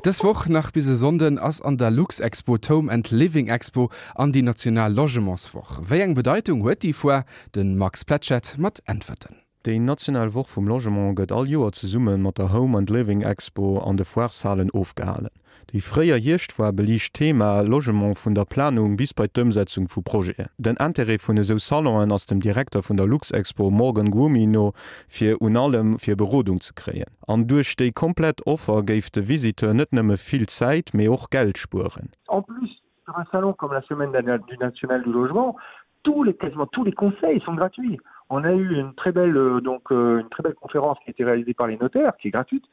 Dës Woch nach bis e Sonnden ass an der Luxexpo d'Home and Living Expo an déi national Logementswoch. Wéi eng Bedeitung huet déi Foire? De Max Pletschette mat Äntwerten. Déi national Woch vum Logement gëtt all Joer zesumme mat der Home and Living Expo an de Foireshalen ofgehalen. Déi fréier Hierschtfoire beliicht d'Thema Logement vun der Planung bis bei d'Ëmsetzung vu Projeten. Den Intérêt vun esou Salonen ass dem Direkter vun der Luxexpo Morgan Gumy no fir un allem fir Berodung ze kréien. An duerch déi komplett Offer géif de Visiteur net nëmme vill Zäit, mee och Geld spueren. En plus, sur un salon comme la semaine du national du logement, tous les, quasiment tous les conseils sont gratuits. On a eu une très belle, euh, donc, euh, une très belle conférence qui a été réalisée par les notaires, qui est gratuite,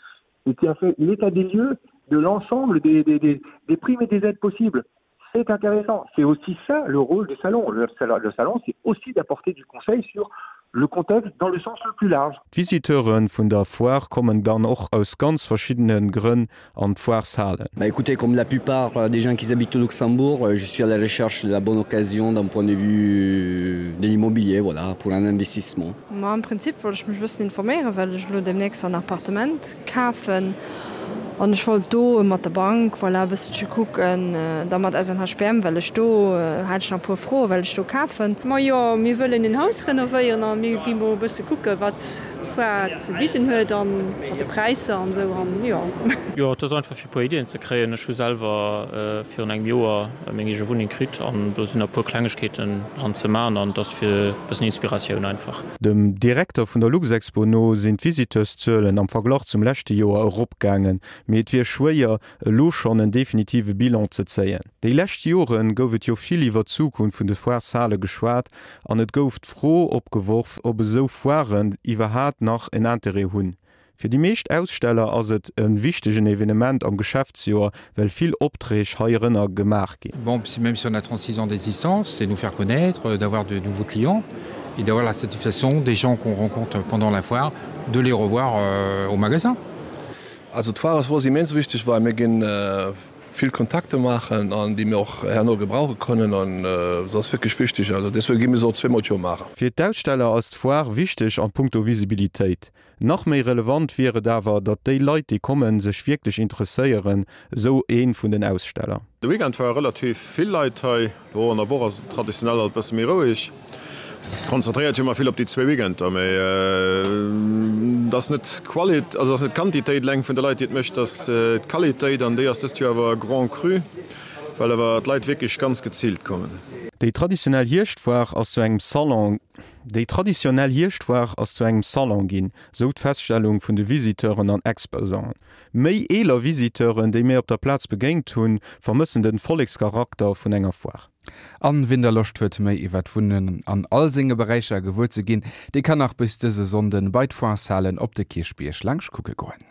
et qui a fait l'état des lieux de l'ensemble des, des, des, des primes et des aides possibles. C'est intéressant. C'est aussi ça le rôle du salon. Le, le salon, c'est aussi d'apporter du conseil sur le contexte dans le sens le plus large. D'Visiteure vun der Foire kommen dann och aus ganz verschiddene Grënn an d'Foireshalen. Bah écoutez, comme la plupart des gens qui habitent au Luxembourg, je suis à la recherche de la bonne occasion d'un point de vue de l'immobilier, voilà, pour un investissement. Ma am Prinzip wollt ech mech e bëssen informéieren, well ech elo demnächst en Appartement kafen an ech wollt do mat der Bank, voilà, e bësselche kucken, da mat SNHBM, well ech do hat ech nach e puer Froen, well ech do kafen. Majo, mir wëllen en Haus renovéieren a mir gi mol e bësse kucken, wat d'Foire ze bidden huet an mat de Präisser an esou an jo. Jo, et ass einfach fir e puer Iddien ze kréien. Ech hu selwer virun engem Joer meng eege Wunneng kritt an do sinn nach e puer Klengegkeeten dran ze man an et ass fir e bëssen Inspiratioun einfach. Dem Direkter vun der Luxexpo no sinn d'Visiteurszuelen am Verglach zum leschte Joer eropgaangen, mee et wier schwéier, elo schonn en definitive Bilan ze zéien. Déi lescht Jore gouf et jo vill iwwer d'Zukunft vun de Foireshale geschwat an et gouf d'Fro opgeworf, ob esou Foiren iwwerhaat nach en Interêt hunn. Fir déi meescht Aussteller ass et e wichtegen Evenement am Geschäftsjoer, well vill Opträg heirënner gemaach ginn. Bon, même si on a 36 ans d'existence, c'est nous faire connaître, d'avoir de nouveaux clients et d'avoir la satisfaction des gens qu'on rencontre pendant la foire, de les revoir euh, au magasin. Also d'Foire ass fir ons immens wichteg, well mir ginn vill Kontakte maachen an déi mir och herno gebrauche kënnen an se ass wierklech wichteg. Also deswegen gi mir se och zweemol d'Joer maachen. Fir d'Aussteller ass d'Foire wichteg an punkto Visibilitéit. Nach méi relevant wier et awer, datt déi Leit déi kommen, sech wierklech interesséieren, esou ee vun den Aussteller. De Weekend ware relativ vill Leit hei. Lo an der Woch ass et traditionell alt bësse méi roueg. Konzentréiert hu mer vill op déi zwee Weekender, mee et ass net d'Qualit, also et ass net d'Quantitéit eleng vun de Leit, déi et mécht, et ass d'Qualitéit an déi ass dëst Joer awer grand cru, well awer d'Leit wierklech ganz geziilt kommen. Déi traditionell Hierschtfoire ass zu engem Salon. Déi traditionell Hierschtfoire ass zu engem Salon ginn, sou d'Feststellung vun de Visiteuren an Exposanten. Méi eeler Visiteuren, déi mir op der Plaz begéint hunn, vermëssen den Vollekscharakter vun enger Foire. An wien da Loscht huet méi iwwer d'Wunnen an all senge Beräicher gewuer ze ginn, dee kann nach bis dëse Sonnden bei d'Foireshalen op de Kierchbierg laanscht kucke goen.